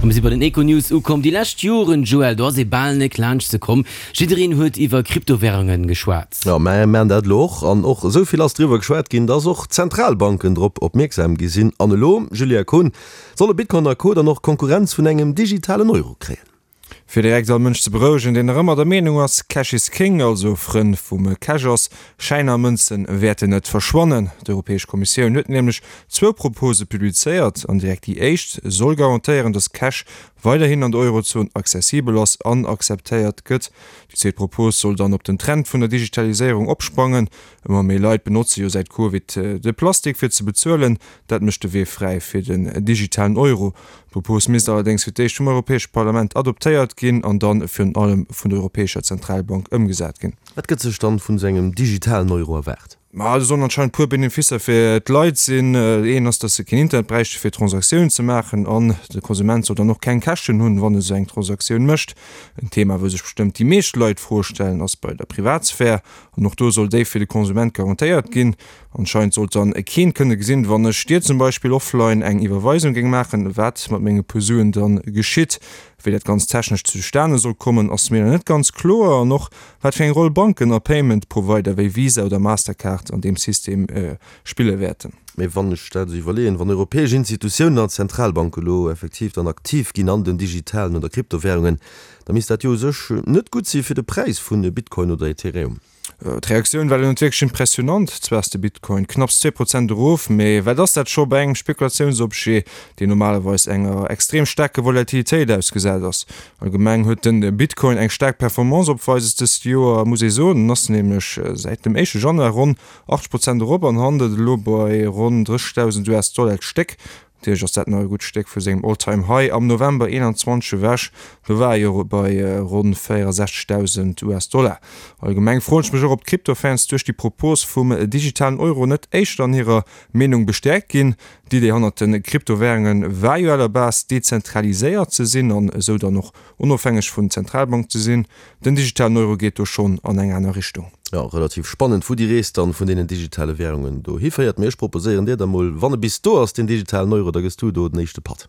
A mir si bei den Econews ukomm. Déi lescht Joren, Joël, do ass ee bal net laanscht ze komm. Jiddereen huet iwwer Kryptowärungen geschwat. Jo, mä mir maachen dat elo och. An och esou vill ass driwwer geschwat ginn, dass och d'Zentralbanken drop opmierksam gi sinn. An elo, Julia Kohn, solle Bitcoin a Co. Dann och Konkurrenz vun engem digitalen Euro kréien. Fir direkt all Mënsch ze berouegen, deen nach ëmmer der Meenung ass, Cash is King, also Frënn vum Cash ass, Schäiner a Mënze wäerten net verschwannen. D'Europäesch Kommissioun huet nämlech zwou Propose publizéiert an direkt déi éischt soll garantéieren, datt Cash weiderhin an der Eurozon accessibel ass an akzeptéiert gëtt. Déi zweet Propos soll dann op den Trend vun der Digitaliséierung opsprangen. Ëmmer méi Leit benotze jo säit Covid de Plastik fir ze bezuelen. Dat mécht de Wee fräi fir den digitalen Euro. D'Propos misst allerdéngs fir d'éischt vum Europäesche Parlament adoptéiert ginn an dann virun allem vun der Europäescher Zentralbank ëmgesat ginn. Wat gëtt sech dann vun esou engem digitalen Euro erwaart? Ma do sollen anscheinend puer Beneficer fir d'Leit sinn. Een ass, dass se keen Internet bräichte fir Transaktiounen ze maachen an de Konsument soll dann och keng Käschten hunn, wann e sou eng Transaktioun mécht. En Thema, wou sech bestëmmt déi meescht Leit d'Fro stellen, ass bei der Privatsphär. An och do soll déi fir de Konsument garantéiert ginn. Anscheinend sollt dann keen kënne gesinn, wann ech dir zum Beispill offline eng Iwwerweisung géing maachen, wat mat menge puer Suen dann geschitt. Wéi dat ganz technesch zustane soll kommen, ass mir nach net ganz kloer. An och wat fir eng Roll Banken a Payment Provider wéi Visa oder Mastercard an deem System spille wäerten. Mee wann ech dat esou iwwerleeën, wann europäesch Institutiounen an Zentralbanke elo effektiv dann aktiv ginn an den digitalen oder Kryptowährungen, Da misst dat jo u sech net gutt si fir de Präis vu Bitcoin oder Ethereum. D'Reaktioun war lo net wierklech impressionant. Zwar ass de Bitcoin knapps 2 Prozent erof, mee wat ass dat scho bei engem Spekulatiounsobjet, deen normalerweis enger extrem staarke Volatilitéit ausgesat ass. Allgemeng huet de Bitcoin eng staark Performance opweises dëst Joer, muss ee soen. En ass nämlech säit dem éischte Januar ronn 80 Prozent erop an handelt elo bei ronn 30.000 US-Dollar d'Stéck. Natierlech ass dat nach e gutt Stéck vu sengem All-Time High am November 21 ewech, do war e jo bei ronn 64.000 US-Dollar. Allgemeng froen ech mech och, ob d'Crypto-Fans duerch déi Propos vum digitalen Euro net éischter an hirer Meenung bestäerkt ginn. D'Idee hannert de Kryptowärunge war jo à la base dezentraliséiert ze sinn an esou dann och onofhängeg vun Zentralbank ze sinn. Den digitalen Euro geet do schonn an eng aner Richtung. Jo, relativ spannend, wou déi Rees dann vun deenen digitale Währungen do hiféiert. Mee ech proposéieren dir da mol, wann e bis do ass, deen digitalen Euro, da gëss du do den éischte Patt.